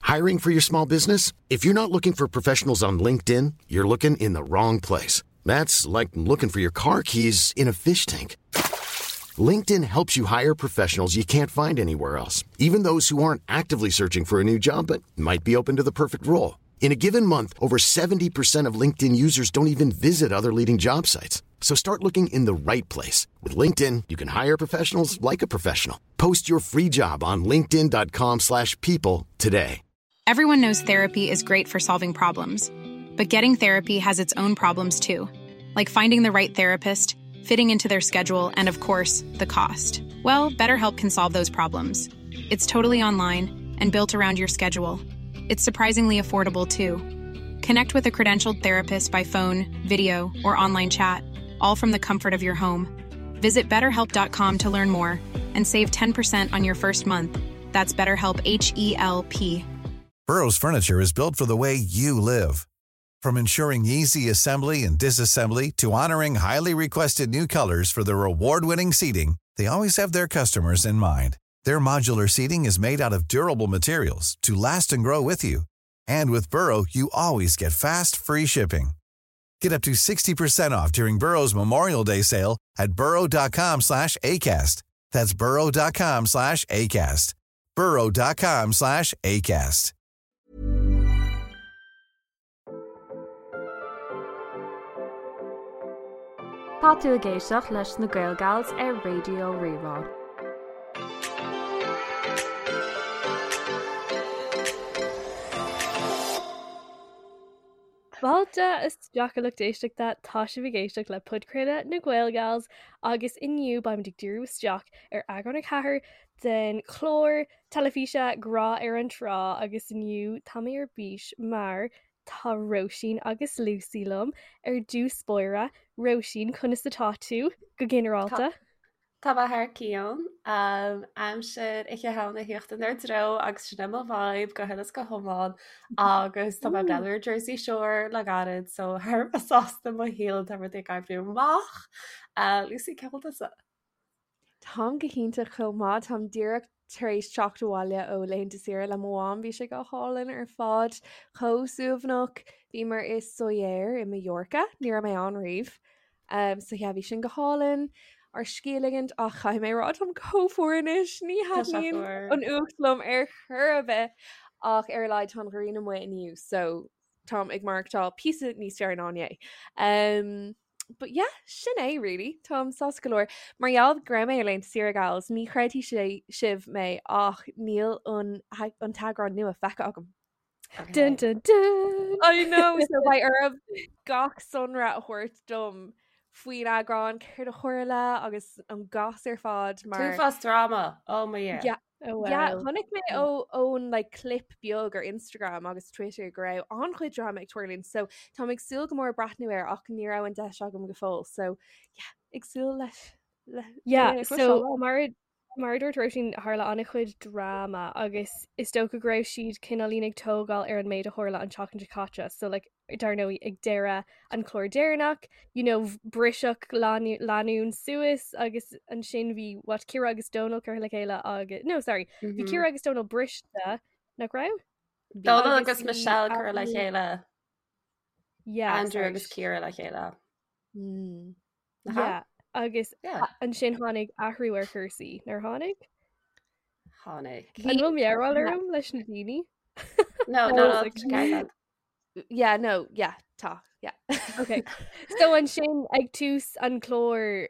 Hiring for your small business? If you're not looking for professionals on LinkedIn, you're looking in the wrong place. That's like looking for your car keys in a fish tank. LinkedIn helps you hire professionals you can't find anywhere else, even those who aren't actively searching for a new job but might be open to the perfect role. In a given month, over 70% of LinkedIn users don't even visit other leading job sites. So start looking in the right place. With LinkedIn, you can hire professionals like a professional. Post your free job on linkedin.com slash people today. Everyone knows therapy is great for solving problems, but getting therapy has its own problems too, like finding the right therapist, fitting into their schedule, and of course, the cost. Well, BetterHelp can solve those problems. It's totally online and built around your schedule. It's surprisingly affordable too. Connect with a credentialed therapist by phone, video, or online chat, all from the comfort of your home. Visit betterhelp.com to learn more and save 10% on your first month. That's BetterHelp H E L P. Burrow's furniture is built for the way you live. From ensuring easy assembly and disassembly to honoring highly requested new colors for their award-winning seating, they always have their customers in mind. Their modular seating is made out of durable materials to last and grow with you. And with Burrow, you always get fast, free shipping. Get up to 60% off during Burrow's Memorial Day sale at burrow.com slash ACAST. That's burrow.com slash ACAST. burrow.com slash ACAST. Tá tú ag éisteacht leis na Gaelgals ar Raidió Rí-Rá. Fáilte isteach a lucht éisteachta, tá sibh ag éisteacht le podchraoladh na Gaelgals agus inniu beimid ag díriú isteach ar eagrán 4 den chlár teilifíse Grá ar an Trá agus inniu tá mé ar bís mar tá Róisín agus Lucy liom ar dtús báire. Róisín, conas atá tú go ginearálta? Tá mé thar cionn. Aimsir Oíche Shamhna ag tíocht inár dtreo agus sin é mo vibe go huile is go hiomlán agus tá mé ag breathnú ar Jersey Shore le gairid so thar a bheith sásta i mo shaol tá rudaí ag oibriú amach. Lucy, cén chaoi a bhfuil tusa? Táim go hiontach chomh maith. Táim díreach tar éis teacht abhaile ó laethanta saoire le mo mham. Bhí sé go hálainn ar fad, chomh suaimhneach. Bhíomar i Sóller i Mallorca, ní raibh mé ann riamh. Um, so yeah, bhí sin go hálainn ár scíth a ligint ach caithfidh mé a rá táim chomh fuar anois, ní thaitníonn an fhuacht liom ar chor ar bith ach ar a laghad tá an ghrian amuigh inniu so táim ag maireachtáil píosa níos fearr ná inné. Um, but yeah, sin é really. Táim sásta go leor. Mar gheall go raibh mé ar laethanta saoire gals, ní chreidfidh sé sibh mé ach níl an an t-eagrán nua feicthe agam. Dun, dun, dun. I know, so beidh oraibh gach sonra a thabhairt dom faoin eagrán, céard a tharla agus an gas ar fad mar. Uafás drama, oh my yeah. Yeah, Oh, Yeah, wow. chonaic mé ó ón like, clip beag ar Instagram agus Twitter go raibh an-chuid drama ag tarlúint, so táim ag súil go mór breathnú air ach ní raibh an deis agam go fóill, so yeah, ag súil leis. Le, Yeah, le so mar mar a dúirt Róisín tharla an-chuid drama agus is dócha go raibh siad cineáilín ag tógáil ar an méid a tharla an tseachtain seo caite, so like dar ndóigh ag deireadh an chlár deireanach, you know, briseadh lánúin suas agus ansin bhí what Ciara agus Donal curtha le chéile agus no sorry, bhí mm -hmm. Ciara agus Donal briste nach raibh? Donal agus Michelle curtha le chéile. Yeah, Andrew agus Ciara le chéile. Mm. Yeah, agus yeah. ansin tháinig athrú ar chúrsaí nár tháinig? Tháinig. An bhfuil mearbhall orm leis na daoine? No, no, no, Yeah, no, yeah, tá, yeah. Okay. So ansin ag tús an chlár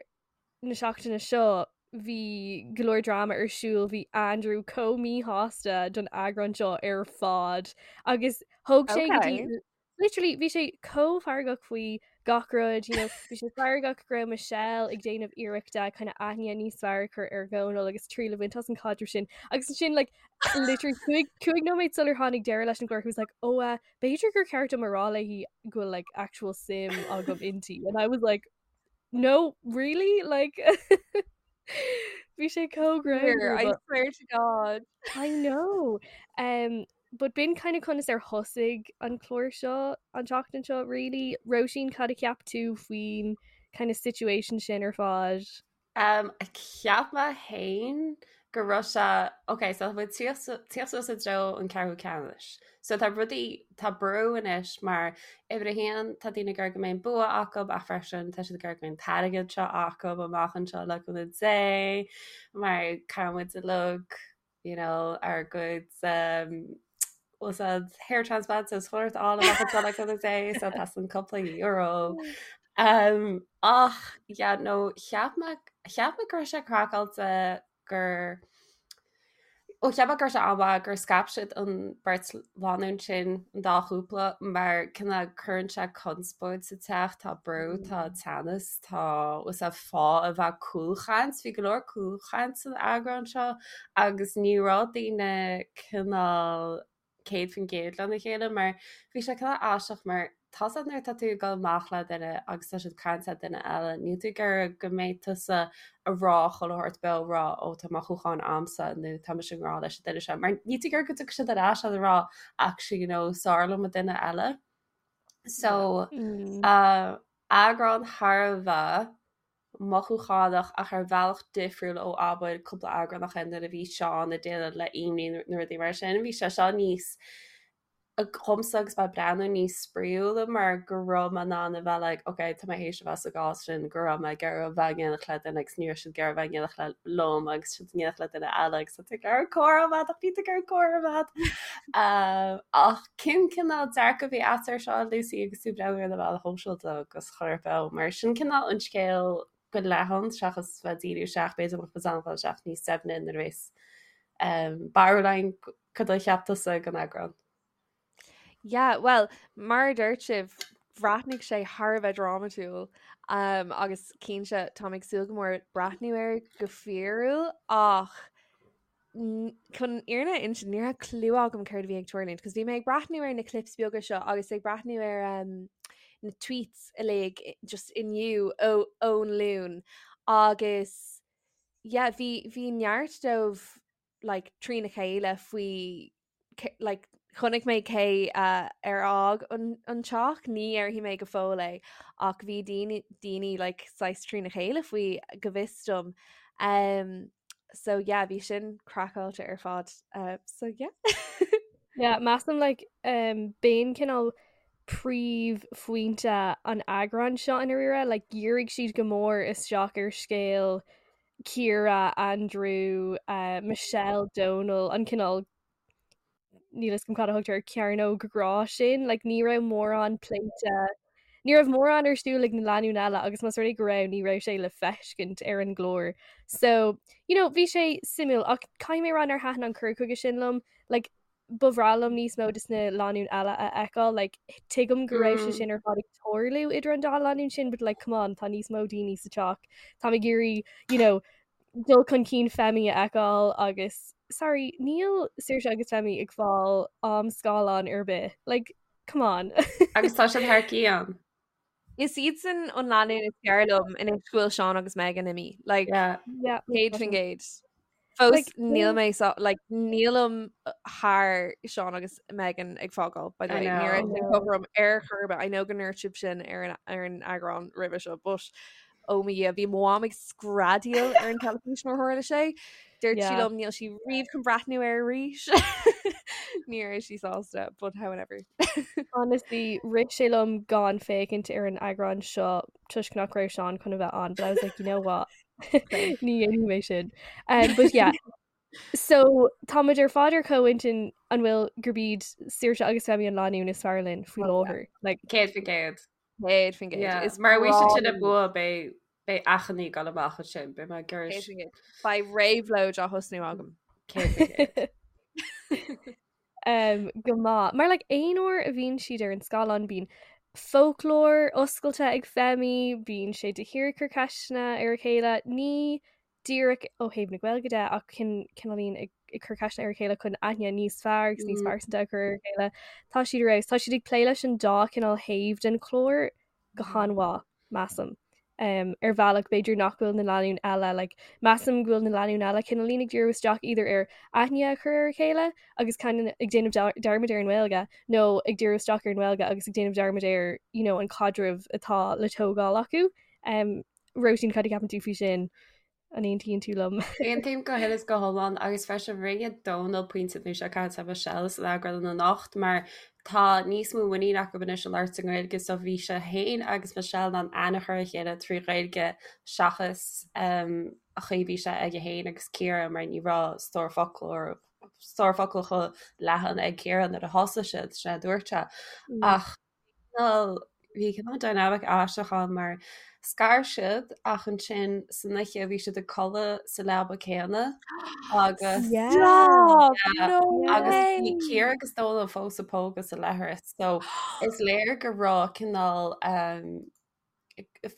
na seachtaine seo bhí go leor drama ar siúl, bhí Andrew chomh míshásta don eagrán seo ar fad agus thóg sé go dtí Okay. literally bhí sé chomh feargach faoi gach rud, you know, bhí sé feargach go raibh Michelle ag déanamh iarrachta kind of aithne níos fearr a chur ar Dhónal agus triail a bhaint as an caidreamh sin agus ansin like literally cúig nóiméad sular tháinig deireadh leis an gclár he was like oh uh, b'fhéidir gur cheart dom a rá léi go bhfuil like actual suim agam inti and I was like no really like bhí sé chomh greannmhar I swear to God I know um, but b'in kind of conas ar thosaigh an clár seo an tseachtain seo really Róisín cad a cheap tú faoin kind of situation sin ar fad Um, cheap mé féin. go raibh sé ok so tá muid tíocht suas i dtreo an ceathrú ceannais. So tá rudaí tá brú anois mar uimhir a haon tá daoine ag iarraidh go mbeidh an bua acu ach freisin tá siad ag iarraidh go mbeidh an t-airgead seo acu amach anseo le cúnamh Dé mar caithfidh muid uilig you know ár gcuid um, úsáid hair transplants is chuirt á amach anseo le cúnamh Dé so tá san cúpla euro. Um, ach yeah, no cheap mé cheap mé go raibh sé craiceáilte gur ó cheap mé go raibh sé an-mhaith gur scaip siad an beirt lánúin sin an dá chúpla mar cineál cuireann sé conspóid sa teach, tá brú, tá teannas, tá is é fáth a bheith cúlchaint, bhí go leor cúlchaint san eagrán seo agus ní raibh daoine cineál 100% lena chéile mar bhí sé cineál aisteach mar tá a fhios agat nuair atá tú ag dul amach le duine agus tá siad ag caint le duine eile níl tú ag iarraidh go mbeidh tusa ag rá chuile shórt beo ag rá ó tá mothúcháin a'msa nó tá mise i ngrá leis an duine seo mar níl tú ag iarraidh go dtiocfaidh siad ar ais ag rá actually you know is fearr liom an duine eile. So mm. uh, eagrán thar a bheith mothúchánach ach ar bhealach difriúil ó abair cúpla eagrán ó shin nuair a bhí Seán ag déileáil le imní nó rudaí mar sin. Bhí sé seo níos dhomsa agus mé ag breathnú níos spraíúla mar go raibh mé in ann a bheith like ok tá mé théis a bheith sa gcás sin go raibh mé ag iarraidh a bheith in éineacht le duine agus ní raibh siad ag iarraidh a bheith in éineacht le liom agus siad in éineacht le duine eile agus tá tú ag iarraidh comhrá a bheith ach níl tú ag iarraidh comhrá a bheith. Ach cén cineál dearcadh a bhí agat air seo Lucy agus tú ag breathnú ar na meáin shóisialta agus chuile shórt beo mar sin cineál an scéal go leathan seachas bheith ag díriú isteach b'fhéidir go mbeadh muid in ann dul isteach níos doimhne nuair a bheas barúil againn cad a cheap tusa den eagrán. Yeah, well, mar a dúirt sibh, bhreathnaigh sé thar a bheith drámatúil um, agus cinnte táim ag súil go mór breathnú air go fíorúil ach chun an fhírinne a insint ní raibh clue agam céard a bhí ag tarlúint, cos bhí mé ag breathnú ar na clips beaga seo agus ag breathnú ar um, na tweets uilig just inniu ó ón Luan agus yeah, bhí bhí neart dóibh like, trína chéile faoi like, chonaic mé cé uh, ar fhág an, an teach, ní dhéarfaidh mé go fóill é ach bhí daoine daoine like, saghas trína chéile faoi go bhfios dom. Um, so yeah, bhí sin craiceáilte ar fad. Uh, so yeah. yeah, measaim like, um, b'in cineál príomhphointe an eagráin seo i ndáiríre, like, dhírigh siad go mór isteach ar scéal Ciara, Andrew, uh, Michelle, Donal, an cineál níl a fhios agam cad a thugtar air cearnóg grá sin, like, ní raibh mórán pléite ní raibh mórán ar siúl ag na lánúin eile agus más rud é go raibh ní raibh sé le feiscint ar an gclár. So, you know, bhí sé suimiúil ach caithfidh mé a rá nár thaitin an cur chuige sin liom, like, ba bhreá liom níos mó de na lánúin eile a fheiceáil, like, tuigim go raibh sé sin ar fad ag tarlú idir an dá lánúin sin, but like, come on, tá níos mó daoine sa teach. Táim ag iarraidh, you know, dul chun cinn Femi a fheiceáil agus sorry, níl Saoirse agus Femi ag fáil am scáileáin ar bith. Like, come on. Agus tá siad thar cionn. Is iadsan an lánúin is fearr liom anois go bhfuil Seán agus Megan imithe. Like, Yeah. Yeah. 100%. Fós Like, níl mé so, like, nílim thar Seán agus Megan ag fágáil, by the I way. Ní raibh know. sin cothrom ar chor ar bith. I know go ndúirt sibh sin ar an, ar an eagrán roimhe seo, but ó mo Dhia, bhí mo mham ag screadaíl ar an teilifís nuair a tharla sé. Dúirt sí Yeah. liom níl sí riamh chun breathnú air arís. Ní raibh sí sásta, but however. Honestly, rith sé liom gan féachaint ar an eagrán seo toisc nach raibh Seán chun a bheith ann, but I was like, you know what? Ní dhéanfaidh mé sin. Um, but yeah. So táimid ar fad ar comhintinn an bhfuil gurb iad Saoirse agus Femi an lánúin is fearr linn faoi Oh, yeah. láthair. Like, 100%. 100%. Yeah. Is Mar bhí siad sin breá ag bua beidh beidh achainí ag dul amach ansin, beidh mé ag iarraidh 100%. Beidh réabhlóid á thosnú agam. 100%. um, go maith. Mar like, aon uair a bhíonn siad ar an scáileán bíonn foclóir oscailte ag Femi, bíonn sé de shíor ag cur ceisteanna ar a chéile, ní díreach ó thaobh na Gaeilge de ach cineáilín ag ag cur ceisteanna ar a chéile chun aithne níos fearr agus níos pearsanta a chur ar a chéile. Tá siad ar fheabhas. Tá siad ag plé leis an dá chineál thaobh den chlár go han-mhaith, measaim. Um, ar bhealach b'fhéidir nach bhfuil na lánúin eile, like, measaim go bhfuil na lánúin eile cineáilín ag díriú isteach either ar aithne a chur ar a chéile agus kind of ag déanamh dearmad ar an nGaeilge nó ag díriú isteach ar an nGaeilge agus ag déanamh dearmad ar you know, an caidreamh atá le tógáil acu. Um, Róisín, cad a cheapann tú faoi sin? An aontaíonn tú liom? Aontaím go huile is go hiomlán agus freisin rinne Dónal pointe nó sé caint le Michelle san eagrán anocht mar tá níos mó muinín acu anois a labhairt i nGaeilge so bhí sé féin agus Michelle in ann aithne a chur ar a chéile trí Ghaeilge seachas um, an chaoi bhí sé aige féin agus Ciara mar ní raibh stór focal stór focal chomh leathan ag Ciara nuair a thosaigh siad sin a dúirt sé mm. ach Cineál, bhí cineál dynamic aisteach ann mar scar siad ach ansin san oíche bhí siad ag codladh sa leaba céanna agus Yeah. Stop! Yeah. No agus bhí way! Ciara agus Dónal fós ag pógadh sa leithreas so is léir go raibh cineál um,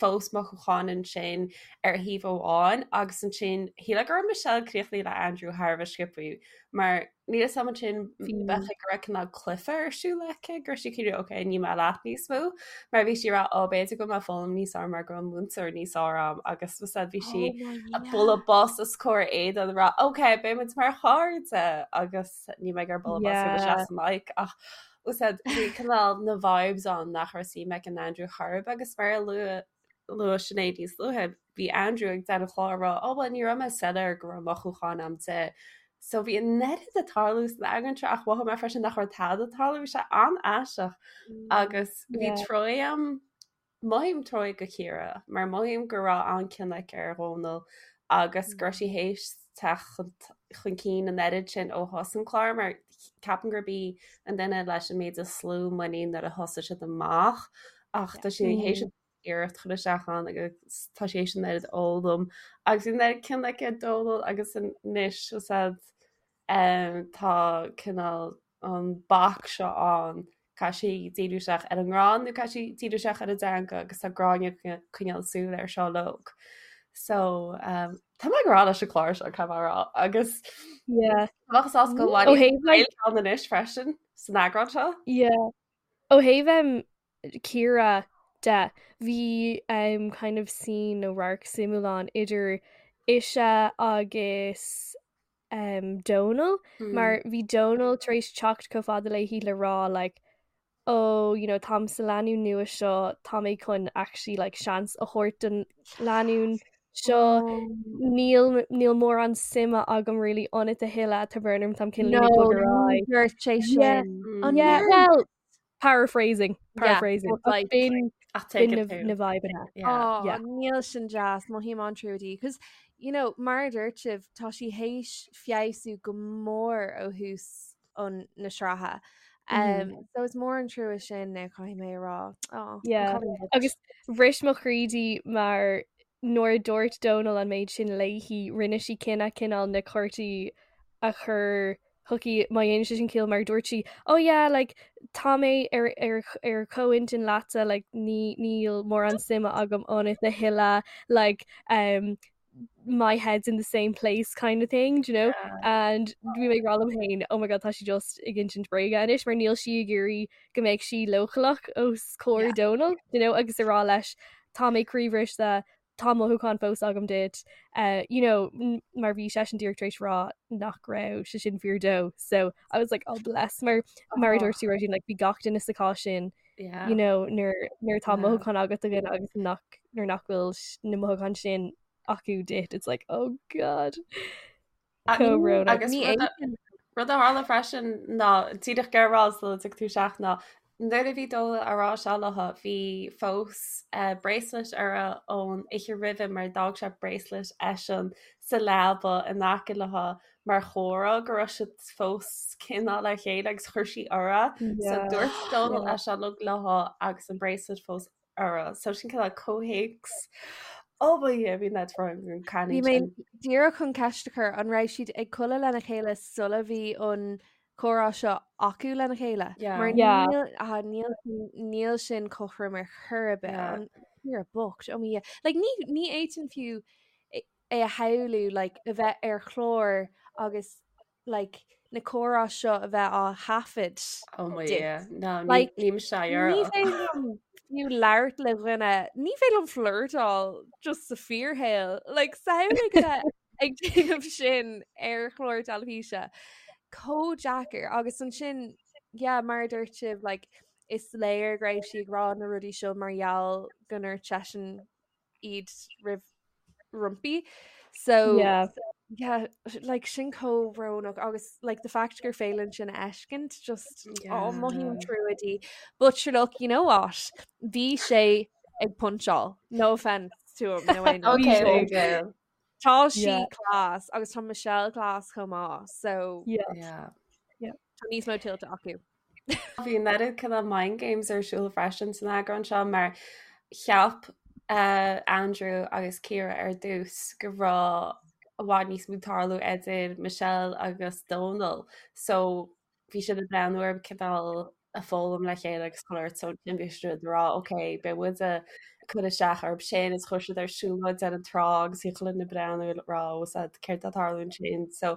fós mothúcháin ansin ar thaobh amháin agus ansin shílfeá go raibh Michelle críochnaithe le Andrew thar a bheith sciobtha mar níl a fhios agam ansin bheadh go raibh cineál cluiche ar siúl aici go raibh sí cineál ok níl mé leat níos mó mar bhí sí ag rá ó b'fhéidir go bhfuil mé ag foghlaim níos fearr mar go bhfuil múinteoir níos fearr agam agus was bhí sí ag bualadh bos os comhair Aidan ag rá ok beidh muid mar chairde agus níl mé ag bualadh bos go yeah. sa mic ach Úsáid bhí cineál na vibes ann nach raibh suim ag an Andrew chor ar bith agus mar a luaigh luaigh Sinéad níos luaithe, bhí Andrew ag deireadh an chláir ag rá oh bhuel ní raibh mé soiléir go raibh mothúcháin agam di. So bhí an oiread ag tarlú san eagrán seo ach mhothaigh mé freisin nach raibh tada ag tarlú, bhí sé an-aisteach agus bhí Yeah. trua agam Mothaím trua do Chiara mar mothaím go raibh an-cion aici ar Dhónal agus go raibh sí théis teacht chun cinn an oiread sin ó thús an clár mar ceapaim gurb í an duine leis an méid is lú muinín nuair a thosaigh siad amach ach tá sí théis iarracht chur isteach ann agus tá sí théis an oiread a fhoghlaim agus bhí an oiread cion aici ar Dónal agus anois tá cineál an bac seo ann, caithfidh sí díriú isteach ar an ngrá nó caithfidh sí díriú isteach ar an dteanga agus tá Gráinne ag coinneáil súil air seo uilig. So um, tá mé ag rá leis an chlár seo caithfidh mé a rá agus Yeah. bheadh sásta go Ó bhfuil thaobh like ann anois freisin san eagrán seo. Yeah. Ó thaobh um, Ciara de, bhí um, kind of scene nó radharc suimiúil ann idir ise agus um, Dónal mar bhí Dónal tar éis teacht chomh fada léi le rá like oh you know táim sa lánúin nua seo tá mé chun actually like seans a thabhairt don lánúin seo níl níl mórán suime agam really ionat a thuilleadh tá brón orm táim cineál ag bogadh ar aghaidh. Dúirt sé Yeah. sin. An Yeah, ndúirt? well Paraphrasing, paraphrasing. but like- B'in Ach take b'in it na too. na vibeanna. Yeah. Oh, Yeah. níl sin deas mothaím an-trua di. Cos, you know, mar a dúirt sibh, tá sí théis feabhsú go mór ó thús an na sraithe. Um, so is mór an trua sin eh, caithfidh mé a rá. Oh, an Yeah. cailín bocht. Agus bhris mo chroí di mar nuair a dúirt Dónal an méid sin léi, rinne sí cinneadh cineál na cártaí a chur chuici má dhéanann sé sin ciall mar dúirt sí oh yeah like tá mé ar ar ar comhintinn leatsa like ní níl mórán suime agam ionat a thuilleadh like um my head's in the same place kind of thing do you know and bhí mé ag rá liom féin oh my god tá sí just ag insint bréige anois mar níl sí ag iarraidh go mbeidh sí leochaileach os comhair Yeah. Dónal do you know agus a rá leis tá mé croíbhriste tá mothúchán fós agam duit uh, you know mar bhí seisean díreach tar éis rá nach raibh sé sin fíor dó so I was like oh bless mar mar a dúirt tú Róisín like bhí gach duine sa chás sin Yeah. you know nuair nuair atá Yeah. mothúchán agat do dhuine agus nach nuair nach bhfuil na mothúcháin sin acu duit it's like oh god Comhbhrón. Agus Ní rud a- fhéadfainn. rud a tharla freisin ná díreach ag rá sula dtig tú isteach ná nuair a bhí Dónal á rá seo léi bhí fós eh, bracelet uirthi ón oíche roimhe mar d'fhág sé bracelet eisean sa leaba in aice léi mar chomhartha go raibh siad fós cineál le chéile agus chuir sí uirthi. So Yeah. dúirt Dónal Yeah. é seo uilig léi agus an bracelet fós uirthi. So sin cineál comhthéacs. Ó ba dhia bhí net an Bhí cailín mé sin. díreach chun ceist a chur an raibh siad ag codladh lena chéile sula bhí an comhrá seo acu lena chéile. Yeah. Mar Yeah. níl ah, níl níl sin cothrom ar chor ar bith Yeah. an Ciara bocht ó mo Dhia. Like ní ní fhéadfainn fiú é é a shamhlú like a bheith ar chlár agus like na comhrá seo a bheith á thaifead Oh my duit. yeah. No, ní Like, ní sé Ní ar. féidir liom fiú labhairt le dhuine, ní féidir liom flirtáil just sa fíorshaol. Like, samhlaigh bheith ag déanamh sin ar chlár teilifíse. Chomh deacair agus ansin, yeah, mar a dúirt sibh, like, is léir go raibh sí ag rá na rudaí seo mar gheall go ndúirt seisean iad roimh roimpi. So yeah. Yeah, like sin chomh brónach agus like the fact gur féidir linn sin a fheiscint just yeah. oh, mothaím trua di. But sure look, you know what? Bhí sé ag puncháil. No offense to him. No, no. okay, there you go. Tá sí yeah. class agus tá Michelle class chomh maith so yeah. Yeah. Yeah. Tá níos mó tuillte acu. Bhí an oiread cineál mind games ar siúl freisin san eagrán seo mar cheap uh, Andrew agus Ciara ar dtús go raibh i bhfad níos mó ag tarlú idir Michelle agus Dónal so bhí siad ag breathnú ar cineál ag foghlaim le chéile agus chuile shórt so ansin bhí siad ag rá ok beidh muid ag cur isteach orthu sin is chuir siad ar siúlóid ar an trá agus bhí chuile dhuine ag breathnú ag rá ó sad céard atá ag tarlú ansin so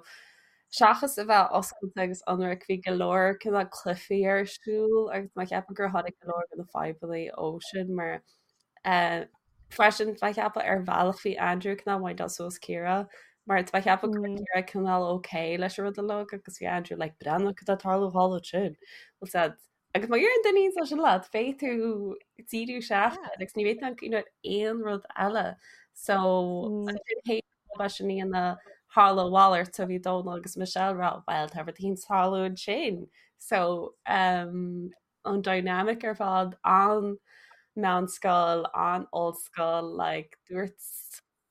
Seachas a bheith oscailte agus ionraic, bhí go leor cineál cluichí ar siúl agus mé ag ceapadh gur tháinig go leor de na fadhbanna ó sin mar freisin tá mé ag ceapadh ar bhealach bhí Andrew cineál windáil suas Ciara mar tá mé ag ceapadh go raibh Ciara cineál ok leis an rud uilig agus bhí Andrew like breathnaigh cad atá ag tarlú thall ansin. Bhfuil said Agus má dheireann duine é sin leat, beidh tú ag díriú isteach air agus ní bheidh tú ag cuimhneamh ar aon rud eile. So ansin sin ina tharla a mhalairt so bhí Dónal agus Michelle ag rá well tá rud éigin ag tarlú ansin. So um, an dynamic ar fad an meánscoil, an ollscoil, like, dúirt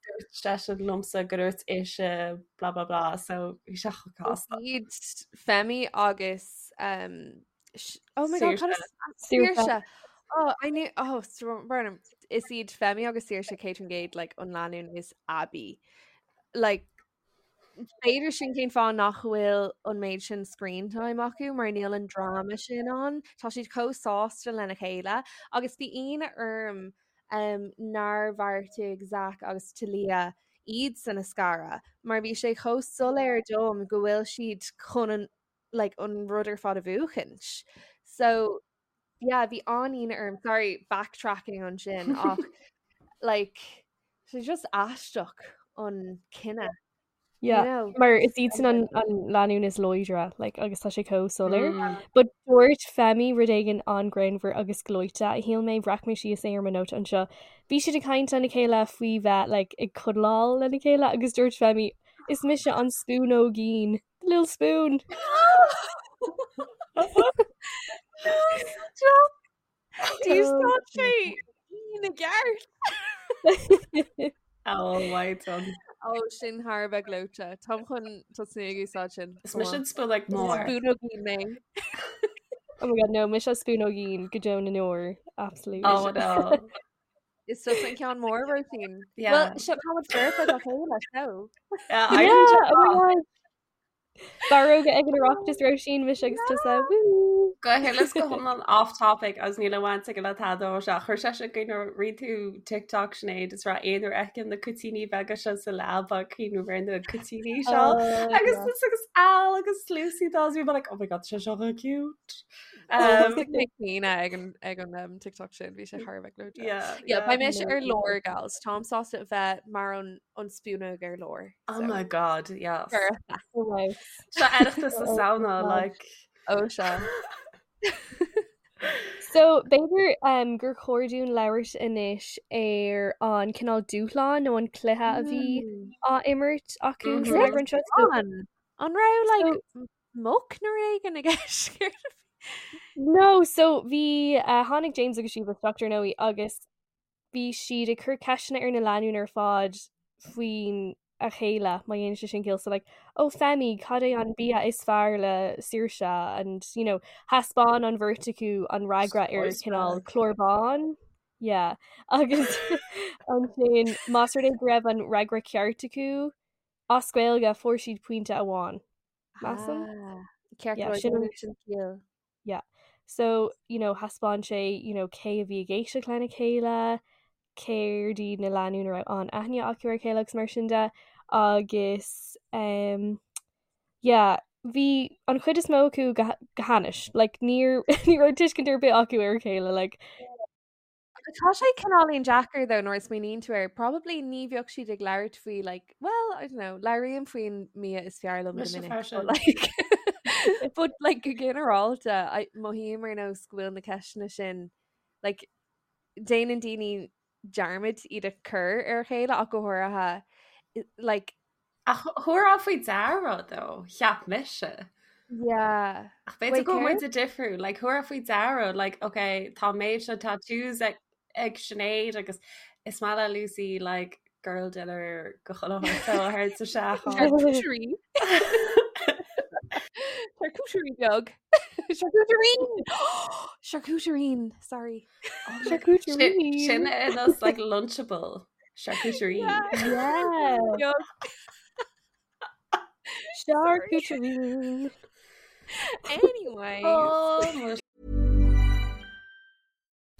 dúirt seisean liomsa go dúirt ise blah blah blah so bhí sé chomh casta. Iad Femi agus um, oh my God, cad is- Saoirse. Oh, I knew oh Burnham. Is iad Femi agus Saoirse 100% like an lánúin is aibí. Like B'fhéidir sin cén fáth nach bhfuil an méid sin screen time acu mar níl an dráma sin ann. Tá siad chomh sásta lena chéile agus bhí ionadh orm um, nár bheartaigh Zach agus Talia iadsan a scaradh mar bhí sé chomh soiléir dom go bhfuil siad chun an, like, an rud ar fad a bhuachaint. So yeah, bhí an-ionadh orm, sorry, backtracking ansin ach like sé just aisteach an cinneadh. Yeah, you know? mar is iadsan an, an lánúin is láidre like, agus tá sé chomh soiléir. Mm. But dúirt Femi rud éigin an-ghreannmhar agus gleoite a shíl mé bhreac mé síos é ar mo nóta anseo. Bhí siad ag caint lena chéile faoi bheith like, ag cuddleáil lena chéile agus dúirt Femi is mise an spúnóigín. The little spoon. D'úsáid sé ina gceart. Oh my God. Ó sin thar a bheith gleoite. Táim chun tosnú ag úsáid sin. Is mise an spúnóg mór. Spúnóigín mé. Oh my god, no, mise spúnóigín go deo na ndeor. Absolutely. Oh no. Is tusa an ceann mór Róisín. Yeah. Well, seo tá muid foirfe dá chéile so. Yeah, Yeah, I didn't oh my god. Barróga ag an Oireachtas Róisín mise agus tusa. Woo! Go huile is go hiomlán off topic agus níl aon bhaint aige le tada ó seo. Chuir sé sin i gcuimhne rinne tú TikTok Sinéad is raibh aon uair fheicim na cuitíní beaga seo sa leaba ag cuimhneamh ar na cuitíní seo. Oh, Agus yeah. is agus Al agus Lucy dá bhí like oh my god sé seo chomh cute. Um, Mé caoineadh ag an ag an um, TikTok sin bhí sé thar a bheith gleoite. yeah, Yeah, beidh mise ar lár gals. Táim sásta a bheith mar an an spúnóg ar lár. Oh my god, yes. Foirfe. Oh, wow. Seo Oireachtas na Samhna, God. like. Ó sea. So b'fhéidir um, gur chóir dúinn labhairt anois ar an cineál dúshlán nó an cluiche a bhí á imirt acu Mhm. san eagrán seo. So, An An raibh like muc nó rud éigin i gceist? No, so bhí uh, tháinig James agus Sheba isteach ar ndóigh agus bhí siad ag cur ceisteanna ar na lánúin ar fad faoin a chéile má dhéanann sé sin ciall so like oh Femi cad é an bia is fearr le Saoirse and you know thaispeáin an bheirt acu an fhreagra ar cineál clár bán yeah agus ansin más rud é go raibh an fhreagra ceart acu as Gaeilge fuair siad pointe amháin measaim Ah, Ceart Yeah, go leor, sin an- déanann sin ciall. Yeah. So, you know, thaispeáin sé, you know, cé a bhí ag éisteacht lena chéile, céard iad na lánúin a raibh an-aithne acu ar a chéile agus mar sin de agus um, yeah, bhí an chuid is mó acu go, go hainnis. Like, níor, ní raibh tuiscint ar bith acu ar a chéile, like, Tá sé cineáilín deacair though nuair a smaoiníonn tú air. Probably ní bheadh siad ag labhairt faoi like, well, I don't know, labhraím faoin mbia is fearr liom go Mise minic, freisin. but like, but like go ginearálta, I- mothaím ar nós go bhfuil na ceisteanna sin like, déanann daoine dearmad iad a chur ar a chéile ach go háirithe Like Ach thabharfá faoi deara though, cheap mise. Yeah. Ach b'fhéidir go bhfuil muid difriúil, like thabharfá faoi deara, like okay, tá méid seo tattoos ag, ag Sinéad agus is maith le Lucy like girl dinner go chuile thar sa seach. Charcuterie beag. Charcuterie! Charcuterie, sorry. Charcuterie. Sin is like lunchable. Charcuterie. Yeah. Charcuterie. Anyway. Oh,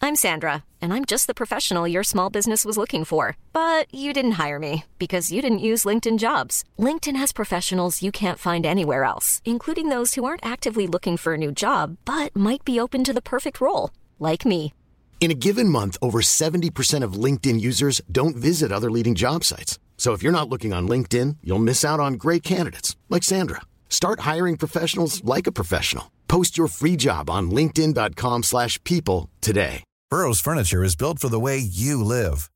I'm Sandra, and I'm just the professional your small business was looking for. But you didn't hire me because you didn't use LinkedIn jobs. LinkedIn has professionals you can't find anywhere else, including those who aren't actively looking for a new job but might be open to the perfect role, like me. In a given month, over 70% of LinkedIn users don't visit other leading job sites. So if you're not looking on LinkedIn, you'll miss out on great candidates like Sandra. Start hiring professionals like a professional. Post your free job on linkedin.com/people slash people today. Burrow's furniture is built for the way you live.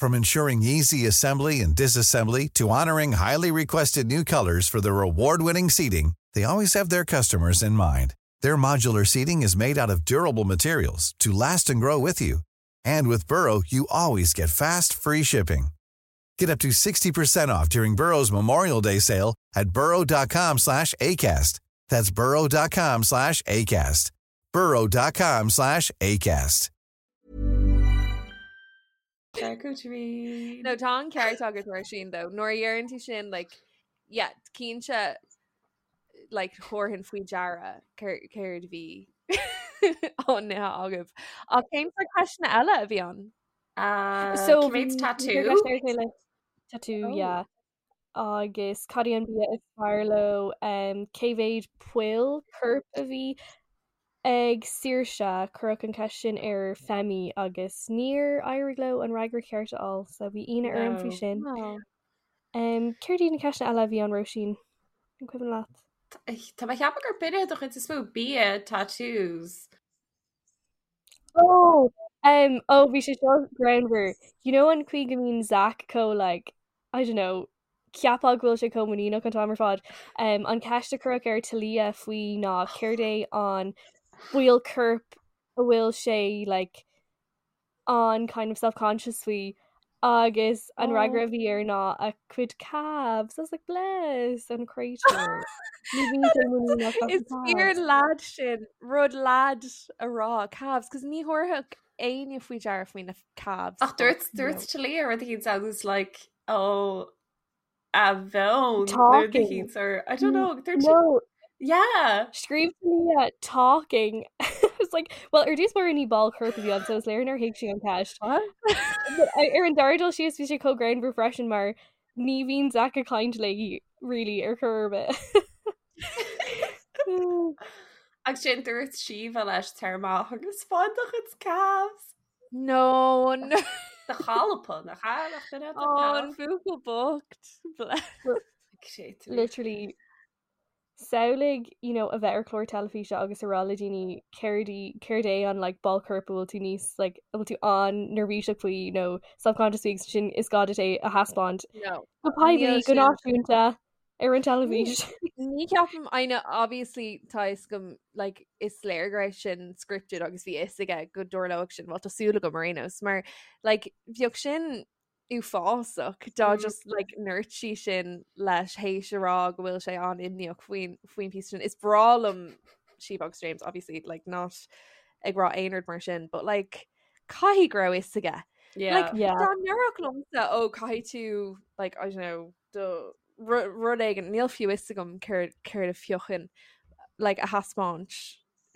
From ensuring easy assembly and disassembly to honoring highly requested new colors for their award-winning seating, they always have their customers in mind. Their modular seating is made out of durable materials to last and grow with you. And with Burrow, you always get fast, free shipping. Get up to 60% off during Burrow's Memorial Day sale at burrow.com slash ACAST. That's burrow.com slash ACAST. burrow.com slash ACAST. Charcuterie. No tá an ceart agat mar sin though. Nuair a dheireann tú sin like yeah, cinnte like thabharfainn faoi deara céard a bhí á n-ithe agaibh. Ach cén sórt ceisteanna eile a bhí ann? Uh, So cé mhéad tattoo? Tattoo, Oh. yeah. Agus cad é an bia is fearr leo um, cé mhéad poll coirp a bhí ag Saoirse cuireadh an cheist sin ar Femi agus níor éirigh leo an fhreagra ceart a fháil, so bhí ionadh orm faoi No. sin. Oh. Um, céard iad na ceisteanna eile a bhí ann Róisín? An cuimhin leat? Tá mé ag ceapadh gur b'in iad an chuid is mó bia tattoos. Oh, um, oh, bhí sé seo greannmhar. You know an chaoi go mbíonn Zach chomh like, I don't know, cheapfá go bhfuil sé chomh muiníneach an t-am ar fad. Um, an ceist a cuireadh ar Talia faoi ná céard é an ball coirp a bhfuil sé like, an kind of self-conscious faoi agus an fhreagra a bhí air ná a cuid calves. I was like, bless an créatúr. Ní bhíonn sé muiníneach as Is na fíor calves. lad sin rud lad a rá calves, cos ní thabharfadh éinne faoi deara faoi na calves. Ach dúirt dúirt Talia rud éicint agus like oh a bheann Talking. or I don't know dúirt sí- No, yeah Scríobh Talia talking. I was like, well, ar dtús báire ní ball coirp a bhí ann, so is léir nár thuig sí an ceist. But ar an dara dul síos bhí sé chomh greannmhar freisin mar ní bhíonn Zach ag caint léi really ar chor ar bith. Agus sin dúirt Síomha leis tar amach agus fáin do chuid calves. No, no. Do chalpa nach ea nach duine do Oh, an calf. buachaill bocht. Bless. Literally samhlaigh you know, a bheith ar chlár teilifíse agus a rá le daoine céard í céard é an like, ball coirp a bhfuil tú níos like, a bhfuil tú an-neirbhíseach faoi nó self-conscious faoi agus sin is gá duit é a thaispeáint No. go poiblí Níl go sin. náisiúnta ar an teilifís. Ní ceapaim I know obviously tá a fhios agam like is léir go raibh sin scripted agus bhí a fhios aige go dtarlódh sin well tá súil agam ar aon nós mar like bheadh sin uafásach dá Mm. just like ndúirt sí sin leis théis a rá go bhfuil sé an-imníoch faoin faoin píosa sin. Is breá liom Síomha agus James obviously like not ag rá aon rud mar sin but like caithfidh go raibh a fhios aige. Yeah. Like Yeah. dá ndéarfadh liomsa ó caithfidh tú like I don't know do rud éigin níl fiú a fhios agam céard céard a phiocfainn like a thaispeáint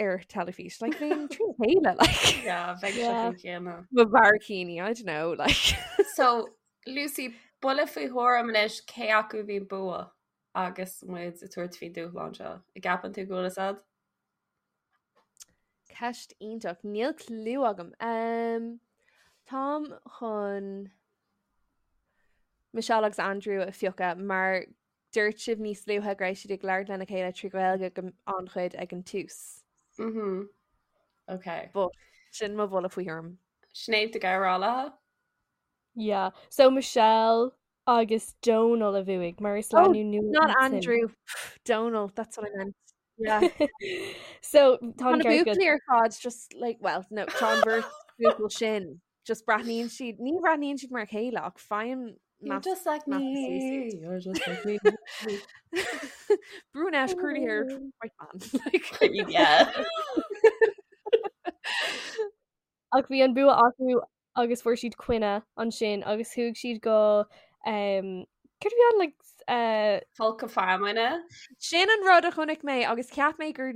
ar teilifís like bheinn trí chéile like Yeah, bheadh sé Yeah. faoin chéanna. mo bharraicíní I don't know like So, Lucy, buille faoi thuairim anois cé acu a bhí bua agus muid ag tabhairt faoin dúshlán seo. An gceapann tú go bhfuil a fhios agat? Ceist iontach níl clue agam. Um, táim chun Michelle agus Andrew a phiocadh mar dúirt sibh níos luaithe go raibh siad ag labhairt lena chéile trí Ghaeilge go an-chuid ag an tús. Mhm. Okay. But sin mo bhuille faoi thuairim. Sinéad tú ag rá Yeah. So Michelle. Agus Dónal a bhuaigh mar is oh, lánúin nua Not Andrew Donal that's what I meant. Yeah. so tá na buachaillí ar fad just like well no tá an bheirt buachaill sin just breathnaíonn siad ní bhreathnaíonn siad mar a chéile ach faighim You're just like me. You're just like me. Brunette curly haired white man. Like, yeah. Ach bhí an bua acu agus fuair siad coinne ansin agus chuaigh siad go um, céard a bhí ann like uh, Folcadh feamainne. Sin an rud a chonaic mé agus cheap mé gur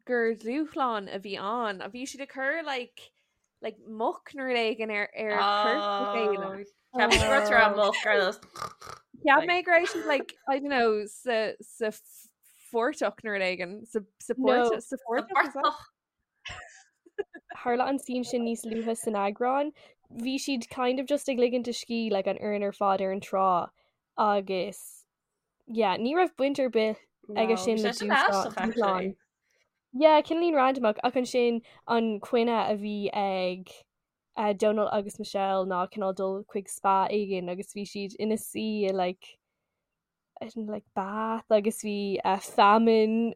gur dúshlán a bhí ann a bhí siad ag cur like like muc nó rud éigin ar ar corp a chéile. Oh, Cheap mé go raibh tú muc ar nós. Cheap mé go raibh siad like I don't know sa sa phortach nó rud éigin sa sa No. sa phortach is that? Tharla an scene sin níos luaithe san eagrán. Bhí siad kind of just ag ligint a scíth like an fhoireann ar fad ar an trá agus yeah, ní raibh baint ar bith aige sin le dúshlán. Yeah, cineáilín randomach ach ansin an coinne a bhí ag uh, Donal agus Michelle ná cineál dul chuig spa éigin agus bhí siad ina suí i like in like bath agus bhí uh, feamainn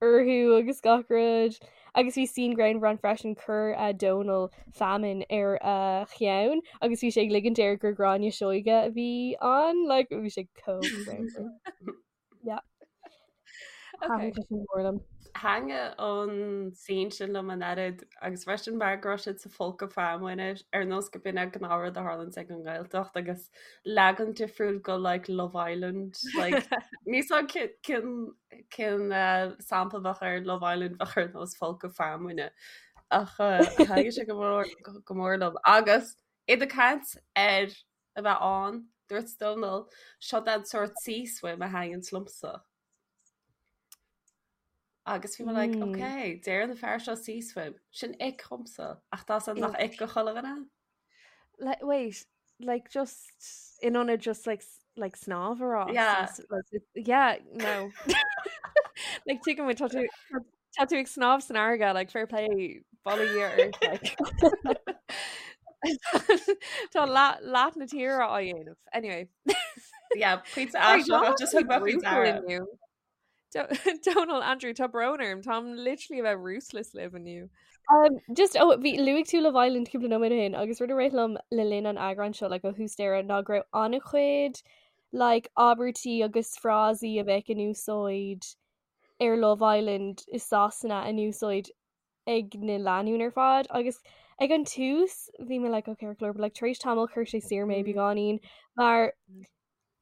orthu agus gach rud. Agus bhí scene greannmhar ann freisin chuir uh, Donal feamainn ar a uh, cheann agus bhí sé ag ligint air gur Gráinne Seoige a bhí ann like, bhí sé chomh greannmhar. Yeah. Okay. Thaitin sé sin mór liom. Thaitnigh an scene sin liom an oiread agus freisin mar go raibh siad sa folcadh feamainne ar nós go b'in an gnáthrud a tharlaíonn ag an nGaeltacht agus leagan difriúil go like Love Island like níl 's agam cén cén eh, sampla bheadh ar Love Island bheadh ar nós folcadh feamainne ach eh, thaitnigh sé go mór go mór liom agus iad ag caint ar a bheith ann dúirt Dónal seo an sórt sea swim a thaitníonn liomsa. Agus bhí mé like, mm. ok, deir an fear seo sea swim, sin ick dhomsa, ach tá san nach ick go chuile dhuine? Like, wait, like just in ionad just like like snámh a rá. Yeah. Like, yeah, no. like tuigim tá tú tá tú ag snámh san fharraige, like fair play bail ó Dhia ort, like. Tá leath leath na tíre á dhéanamh. Anyway. Yeah, pointe aisteach, just thug mé faoi deara. Donal Andrew tá brón orm Táim literally a bheith ruthless libh inniu. Um, just oh, bhí luaigh tú Love Island cúpla nóiméad ó shin agus rud a rith liom le linn an eagráin seo like, ó thús deireadh ná go raibh an-chuid like, abairtí agus frásaí a bheadh in úsáid ar Love Island i Sasana in úsáid ag na lánúin ar fad agus ag an tús bhí mé like, okay, but like, tar éis tamaill chuir sé siar mé beagáinín mar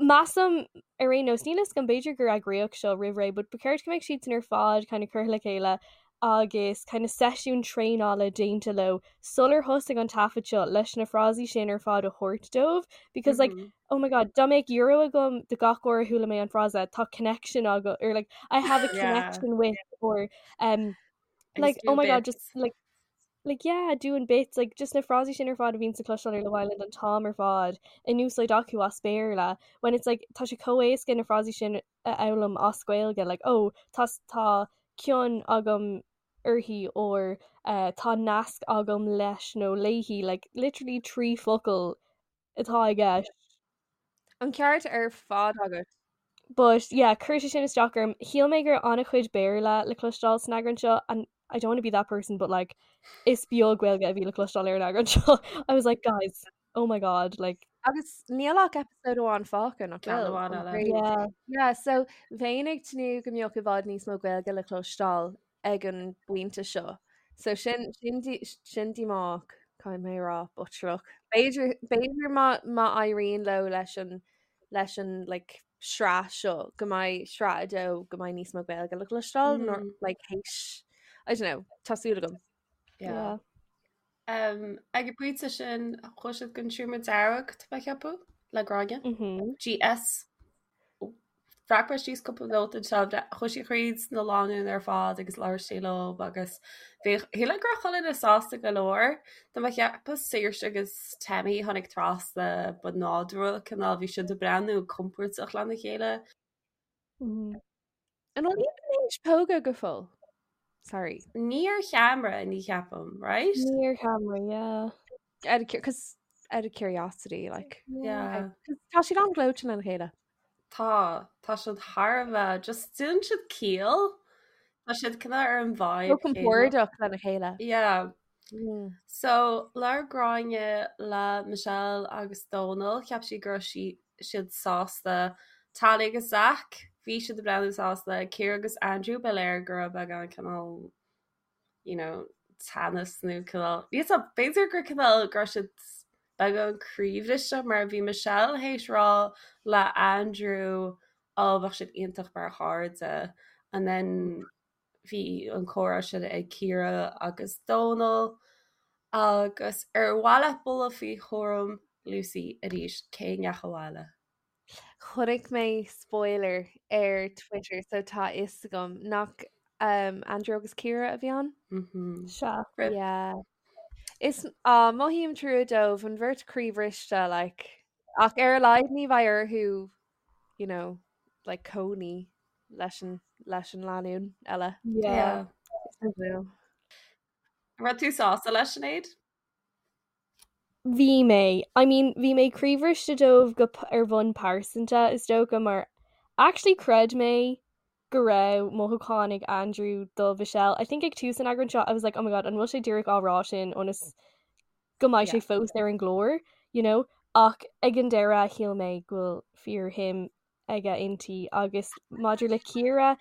Measaim, ar aon nós, níl a fhios agam, b'fhéidir gur eagraíodh seo roimh ré, but ba cheart go mbeadh siadsan ar fad kind of curtha le chéile agus kind of seisiún traenála déanta leo sular thosaigh an taifead seo leis na frásaí sin ar fad a thabhairt dóibh because like mm -hmm. oh my god dá mbeadh euro agam do gach uair a chuala mé an frása tá connection agam or like I have a connection yeah. with or um like oh my god just like like yeah doing bits like just na frásaí sin ar fad a bhíonn le cloisteáil ar Love Island an t-am ar fad in úsáid acu as Béarla when it's like tá sé chomh éasca na frásaí sin a fhoghlaim as Gaeilge like oh tá tá cion agam uirthi or uh, tá nasc agam leis nó léi like literally 3 focal atá i gceist. An ceart ar fad agat. But yeah, chuir sé sin isteach orm. Shíl mé go raibh an-chuid Béarla le cloisteáil san eagrán seo and I don't want to be that person but like is beag Gaeilge a bhí le cloisteáil ar an eagrán seo. I was like guys, oh my god, like Agus níl ach episode amháin fágtha nach Ceann bhfuil? amháin An eile. craobh. yeah. Yeah, so bheinn ag tnúth go mbeadh i bhfad níos mó Gaeilge le cloisteáil ag an bpointe seo. So sin sin sin díomách caithfidh mé a rá but sure look. B'fhéidir b'fhéidir má má éiríonn leo leis an leis an like sraith seo go mbeidh sraith a dó go mbeidh níos mó Gaeilge le cloisteáil mm. nó like théis I don't know, tá súil agam. Yeah. yeah. Um, ag an bpointe sin chuaigh siad don seomra dearg tá mé ag ceapadh le Gráinne. Mm -hmm. GS Bhreac mé síos cúpla nóta anseo, chuaigh sí thríd na lánúin ar fad agus labhair sí leo agus bhí shíl mé go raibh chuile dhuine sásta go leor. Tá mé ag ceapadh Saoirse agus Tammy tháinig trasna ba nádúrtha cineál bhí siad ag breathnú compordach lena chéile. An bhfuil iad tar éis pógadh go fóill? Sorry. Ní ar cheamara ní cheapaim, right? Ní ar cheamara, yeah. Cos out of curiosity, like. Yeah. Tá siad an-ghleoite lena chéile. Tá, tá siad thar a bheith, just déanann siad ciall. Tá siad cineál ar an vibe. Chomh compordach lena chéile. Yeah. So, labhair Gráinne le Michelle agus Dónal, cheap sí go raibh sí siad sásta. Talia agus Zach, bhí siad ag breathnú sásta. Ciara agus Andrew, ba léir go raibh beagán cineál you know, teannas nó cineál, níl 'fhios a'm, b'fhéidir gur cineál go raibh siad beagán croíbhriste mar bhí Michelle théis rá le Andrew ó bheadh siad iontach mar chairde and then bhí an comhrá sin ag Ciara agus Dónal agus ar mhaith leat bualadh faoi chúram Lucy arís cé a ndeachaigh abhaile? Chonaic mé spoiler ar Twitter so tá fhios agam nach um, Andrew agus Ciara a bhí ann? Mm-hmm. Sea. Yeah. Is uh, mothaím trua dóibh an bheirt croíbhriste like, ach ar a laghad ní bheidh orthu you know, like cónaí leis an leis an lánúin eile. Yeah. Yeah. An raibh tú sásta leis Sinéad? Bhí mé. I mean, bhí mé croíbhriste dóibh go ar bhonn pearsanta, is dócha, mar actually chreid mé go raibh mothúcháin ag Andrew do Mhichelle. I think ag tús an eagráin seo, I was like, oh my god, an bhfuil sé díreach á rá sin ionas go mbeidh sé fós ar an gclár, you know? Ach ag an deireadh, shíl mé go bhfuil fíorshuim aige inti agus maidir le Ciara,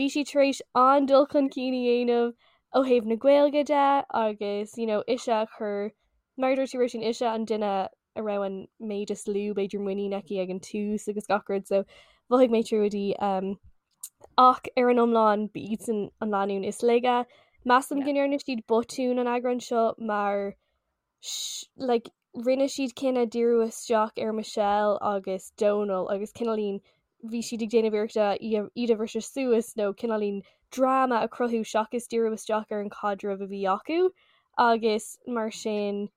bhí sí tar éis an-dul chun cinn a dhéanamh ó thaobh na Gaeilge de agus you know ise a chur, mar a dúirt tú Róisín, ise an duine a raibh an méid is lú b'fhéidir muinín aici ag an tús agus gach rud so mhothaigh mé trua di um, ach ar an iomlán ba iadsan an lánúin is laige. Measaim go ndearna siad botún an eagrán seo mar like, rinne siad cinneadh díriú isteach ar Michelle agus Dónal agus cineáilín bhí siad ag déanamh iarrachta iad a bhriseadh suas nó cineáilín dráma a chruthú seachas díriú isteach ar an chaidreamh a bhí acu agus mar sin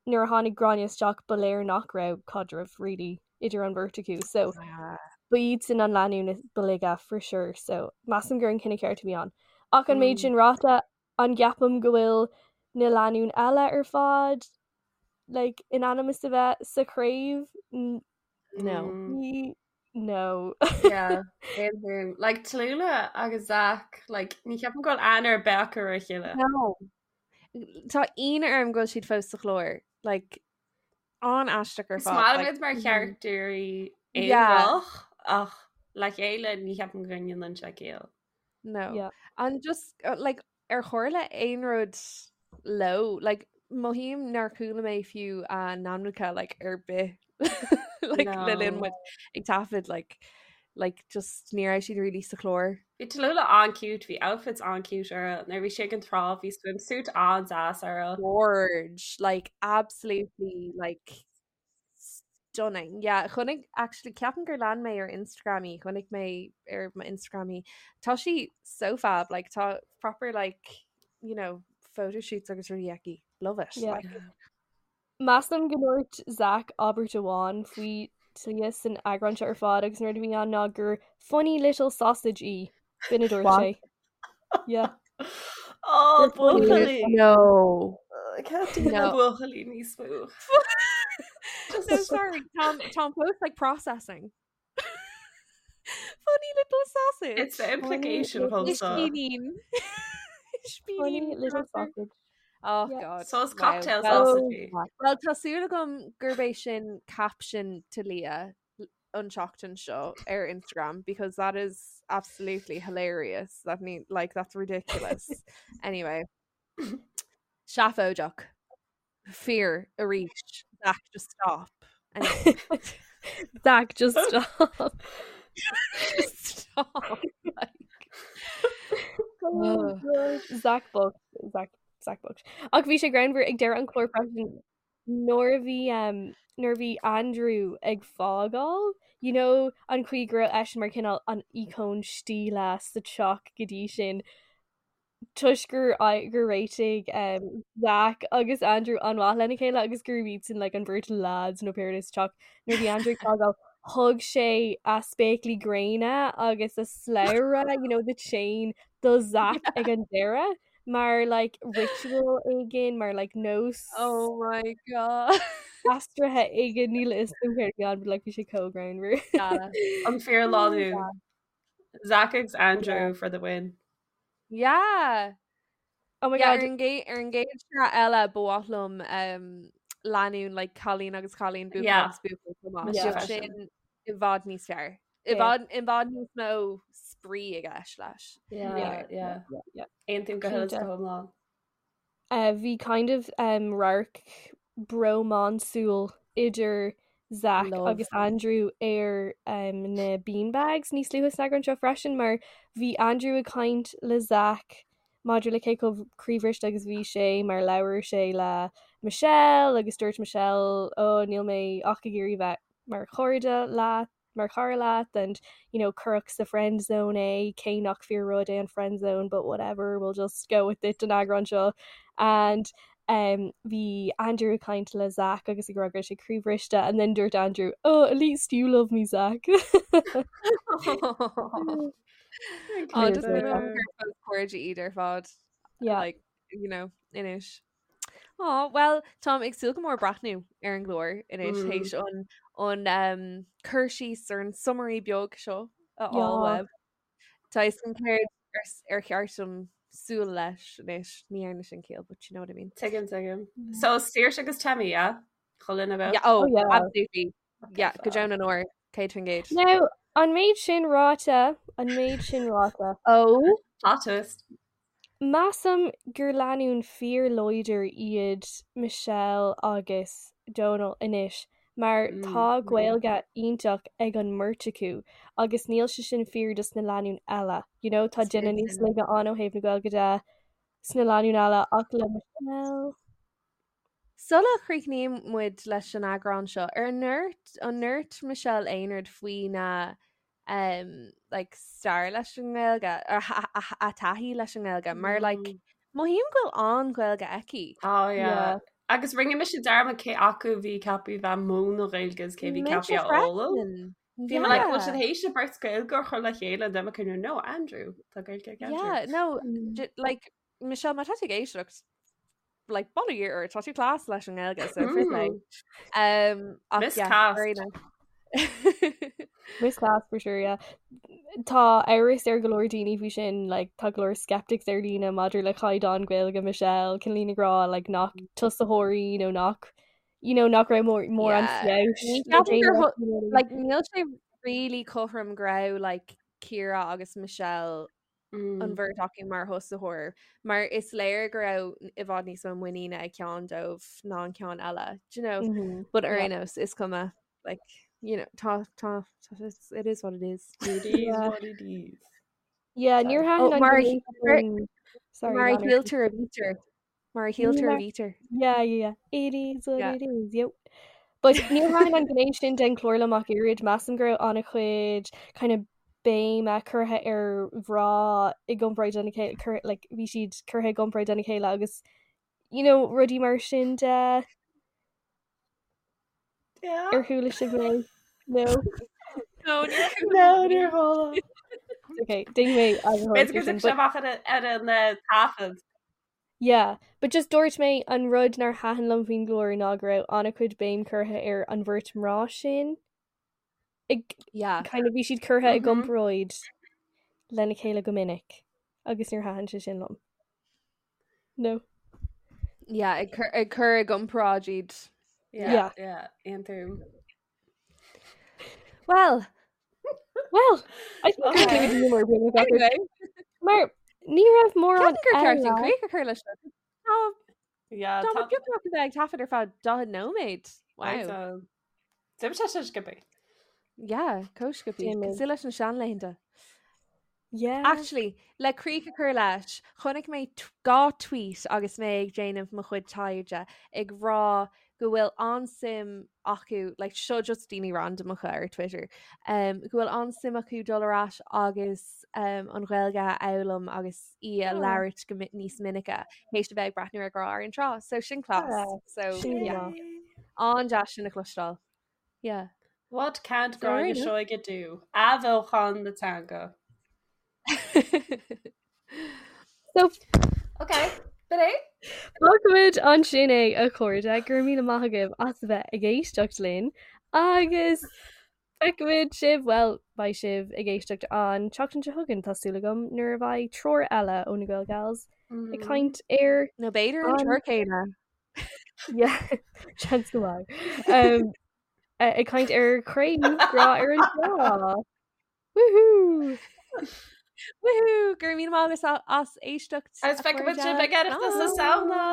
nuair a tháinig Gráinne isteach ba léir nach raibh caidreamh really idir an bheirt acu so ba iadsan an lánúin ba laige for sure so measaim gur an cinneadh ceart a bhí ann. Ach an méid sin ráite An gceapaim go bhfuil na lánúin eile ar fad like, in ainm is a bheith sa chraobh? No. Ní no. Yeah, aontaím. Like Tallulah agus Zach, like, ní cheapaim go bhfuil aithne ar bith acu ar a chéile. No. Tá ionadh orm go bhfuil siad fós sa chlár. Like, an-aisteach ar Is fad. maith liom Like, iad mar characters Yeah. aonarach ach le chéile ní cheapaim go ndéanann sé ciall. No. Yeah. And just uh, like ar tharla aon rud leo like mothaím nár chuala mé fiú a n-ainmneacha like ar bith like le linn No. muid ag taifead like like just ní raibh siad really sa chlár. Bhí Tallulah an-cute, bhí outfits an-cute uirthi. Nuair a bhí sí ag an trá, bhí swimsuit an-deas uirthi. Gorge like absolutely like stunning. Yeah, chonaic actually ceapaim gur lean mé ar Instagram í, chonaic mé ar mo Instagram í. Tá sí so fab, like tá proper like, you know, photo shoots agus rudaí aici. Love it. Yeah. Like, Measaim go ndúirt Zach abairt amháin faoi Talia san eagrán seo ar fad agus an rud a bhí ann ná gur funny little sausage í. B'in a dúirt What? sé. Yeah. Oh, buachaillí. No. I can't do No. buachaillí níos mó. No, sorry, Tom, Tom Post like processing. Funny little sausage. It's the implication little also. Ispínín. Funny Ispínín little crapper. sausage. Oh Yeah. God. So it's Wow. cocktail Well, sausage. Well, tá súil agam gurb é sin caption Talia an tseachtain seo ar Instagram because that is absolutely hilarious. That need like that's ridiculous. anyway, seafóideach. Fear arís. Zach, just stop. Anyway, Zach, just stop. just stop. Like, Oh, Ugh. God. Zach bocht. Zach, Zach bocht. Ach bhí sé greannmhar ag deireadh an chláir freisin nuair a bhí um, nuair a bhí Andrew ag fágáil, you know, an chaoi go raibh eisean mar cineál an íocón stíle sa teach go dtí sin, toisc gur gur réitigh um, Zach agus Andrew an-mhaith lena chéile agus gurb iadsan like, an bheirt lads nó pé rud é sa teach nuair a bhí Andrew ag fágáil thug sé a spéaclaí gréine agus a slabhra, you know, the chain do Zach ag an deireadh. mar like ritual éigin mar like nós Oh my god. aistrithe éigin níl a fhios agam céard a bhí ann but like bhí sé chomh greannmhar. Yeah. An fíor lánúin. Zach agus Andrew for the win. Yeah. Oh my Yeah, god. ar an gcéad ar an gcéad sraith eile ba mhaith liom um, lánúin like cailín agus cailín buachaill Yeah. agus buachaill chomh maith. Mise Bheadh freisin. sin i bhfad níos fearr. I Yeah. bhfad i bhfad níos mó spraoi i gceist leis. Yeah, Yeah, yeah. yeah, yeah. Aontaím go huile is Cinnte. go hiomlán. Uh, bhí kind of um, radharc brómánsúil idir Zach Love. agus Andrew ar um, na beanbags níos luaithe san eagrán seo freisin mar bhí Andrew ag caint le Zach maidir le cé chomh croíbhriste agus bhí sé mar labhair sé le Michelle agus dúirt Michelle ó níl mé ach ag iarraidh bheith mar chairde leat mar chara leat and you know cuireadh sa friend zone é cé nach fíor rud é an friend zone but whatever we'll just go with it an eagrán seo and um, bhí Andrew ag caint le Zach agus ag rá go raibh sé croíbhriste and then dúirt Andrew oh at least you love me Zach Oh, just been gur cairde iad ar fad. yeah Like, you know, anois. Oh, well, Táim ag súil go mór breathnú ar an gclár anois Mm. théis an an um, cur síos ar an summary beag seo a Yeah. fháil uaibh. Tá a fhios agam céard ar s- ar cheart dom súil leis anois ní dhearna sin ciall, but you know what I mean. Tuigim, tuigim. So Saoirse agus Temi, yeah? Chuile Yeah, oh, Oh, yeah. absolutely. Yeah, go deo na ndeor, 100%. Now an méid sin ráite an méid sin ráite Oh, Plot twist. Measaim gur lánúin fíorláidir iad Michelle agus Donal anois mar tá Gaeilge iontach ag an mbeirt acu agus níl sé sin fíor dos na lánúin eile. You know, tá duine níos laige ann ó thaobh na Gaeilge de sna lánúin eile ach le Michelle. Sula chríochnaíonn muid leis an eagrán seo, ar ndúirt an ndúirt Michelle aon rud faoina um, like, stair leis an nGaeilge ar a taithí leis an nGaeilge mar like, mothaím go bhfuil an-Ghaeilge aici. Oh yeah. Yeah. Agus rinne mise dearmad cé acu bhí ceaptha bheith múineadh Gaeilge is cé bhí Mise ceaptha a fhoghlaim. freisin. Bhí mé like, bhfuil siad Yeah. théis an bheirt Gaeilge a chur le chéile and then mé no Andrew tá Gaeilge ag Andrew. Yeah, no, like Michelle má tá tú ag éisteacht like bail ó Dhia ort tá tú class leis an nGaeilge so fair play. Um, ach yeah, Miscast. very nice. Miscast for sure, yeah. Tá amhras ar go leor daoine faoi sin, like, tá go leor skeptics ar líne maidir le caighdeán Gaeilge Michelle, cineál ag rá like, nach tosaitheoirí nó nach you know, nach raibh mór mórán Yeah. feabhais Ní le ceapaim gur déanamh, thu- you know what I mean? like níl sé really cothrom go raibh like Ciara agus Michelle an bheirt acu mar thosaitheoir mar is léir go raibh i bhfad níos mó muiníne ag ceann dóibh ná an ceann eile do you know Mhm. but ar Yeah. aon nós is cuma like you know tá tá tá it's, it is what it is It is Yeah. what it is. Yeah, níor Oh, thaitin an mar a gné mar sin sorry, mar a lean ort. shíltear a bhítear mar a shíltear a Mar bhítear Yeah, yeah, yeah. It is what yeah it is. Yep. But níor thaitin an gné sin den chlár liom ach oiread measaim go raibh an-chuid kind of béime curtha ar mhná i gcomparáid lena chéile cur like bhí siad curtha i gcomparáid lena chéile agus you know rudaí mar sin de Yeah. ar chuala sibh mé no No, níor chuala No, níor chuala. Okay, déanfaidh mé eagarthóireacht B'fhéidir ar go sin dtiocfaidh sé but amach ar ar an eh, taifead. yeah but just dúirt mé an rud nár thaitin liom faoin gclár ná go raibh an-chuid béim curtha ar an bheirt mná sin ag yeah kind of bhí siad curtha i Mhm. gcomparáid lena chéile go minic agus níor thaitin sé sin liom. No. yeah ag cur ag cur i gcomparáid iad Yeah, Yeah. yeah, aontaím. well Well, I think gur Okay. clue mar bhí anyway Mar ní raibh mórán Ceapaim gur ceart an eile. críoch a chur leis seo. Tá Yeah, Tá tá beagnach a bheith ag taifead ar feadh 40 nóiméad. Wow. D'imigh sé sin sciobtha. Yeah, chomh sciobtha. D'imigh. Cosúil leis na seanlaethanta. Yeah. Actually, le críoch a chur leis, chonaic mé 2 tweet agus mé ag déanamh mo chuid taighde ag rá go bhfuil an-suim acu, like seo just daoine randamacha ar Twitter, um, go bhfuil an-suim acu dul ar ais agus um, an Ghaeilge a fhoghlaim agus í a Oh. labhairt go níos minice théis a bheith ag breathnú ar Grá ar an Trá. So sin class. Yeah, So sin yeah. maith. An-deas sin a chloisteáil. Yeah. What can't So Gráinne ar aon Seoige do? Athbheochan na teanga. So Ok, b'in é. Fágfaimid ansin é a chairde, go raibh míle maith agaibh as a bheith ag éisteacht linn agus feicfimid sibh, bhuel, beidh sibh ag éisteacht an tseachtain seo chugainn, tá súil agam, nuair a bheidh triúr eile ó na Gael Gals ag caint ar Nó b'fhéidir an triúr céanna. Yeah, seans go maith. Um, ag caint ar Craobh Grá ar an Trá. Woohoo! Woohoo! Go raibh míle maith agaibh as éisteacht. Agus feicfimid sibh ag Oireachtas na Samhna!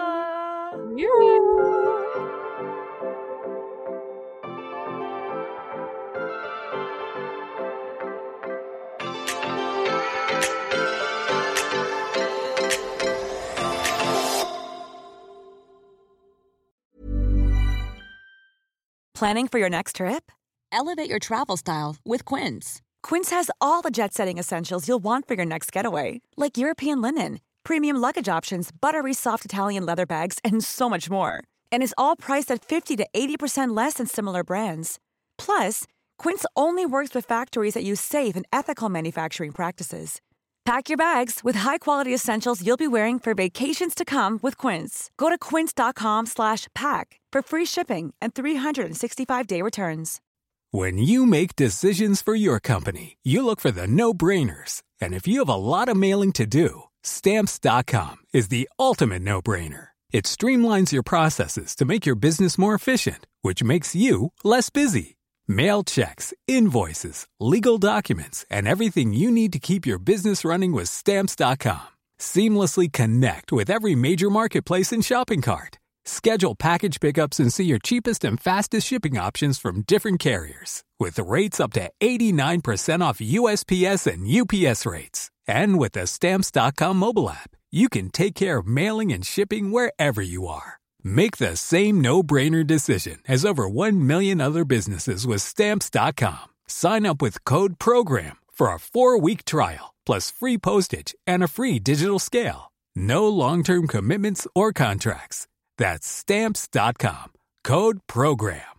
Planning for your next trip? Elevate your travel style with Quince. Quince has all the jet setting essentials you'll want for your next getaway, like European linen, premium luggage options, buttery soft Italian leather bags, and so much more. And is all priced at 50 to 80% less than similar brands. Plus, Quince only works with factories that use safe and ethical manufacturing practices. Pack your bags with high-quality essentials you'll be wearing for vacations to come with Quince. Go to quince.com slash pack for free shipping and 365-day returns. When you make decisions for your company, you look for the no-brainers. And if you have a lot of mailing to do, stamps.com is the ultimate no-brainer. It streamlines your processes to make your business more efficient, which makes you less busy. Mail checks, invoices, legal documents, and everything you need to keep your business running with stamps.com. Seamlessly connect with every major marketplace and shopping cart. Schedule package pickups and see your cheapest and fastest shipping options from different carriers with rates up to 89% off USPS and UPS rates. And with the stamps.com mobile app, you can take care of mailing and shipping wherever you are. Make the same no-brainer decision as over 1 million other businesses with stamps.com. Sign up with code program for a 4-week trial plus free postage and a free digital scale. No long-term commitments or contracts. That's stamps.com. Code program.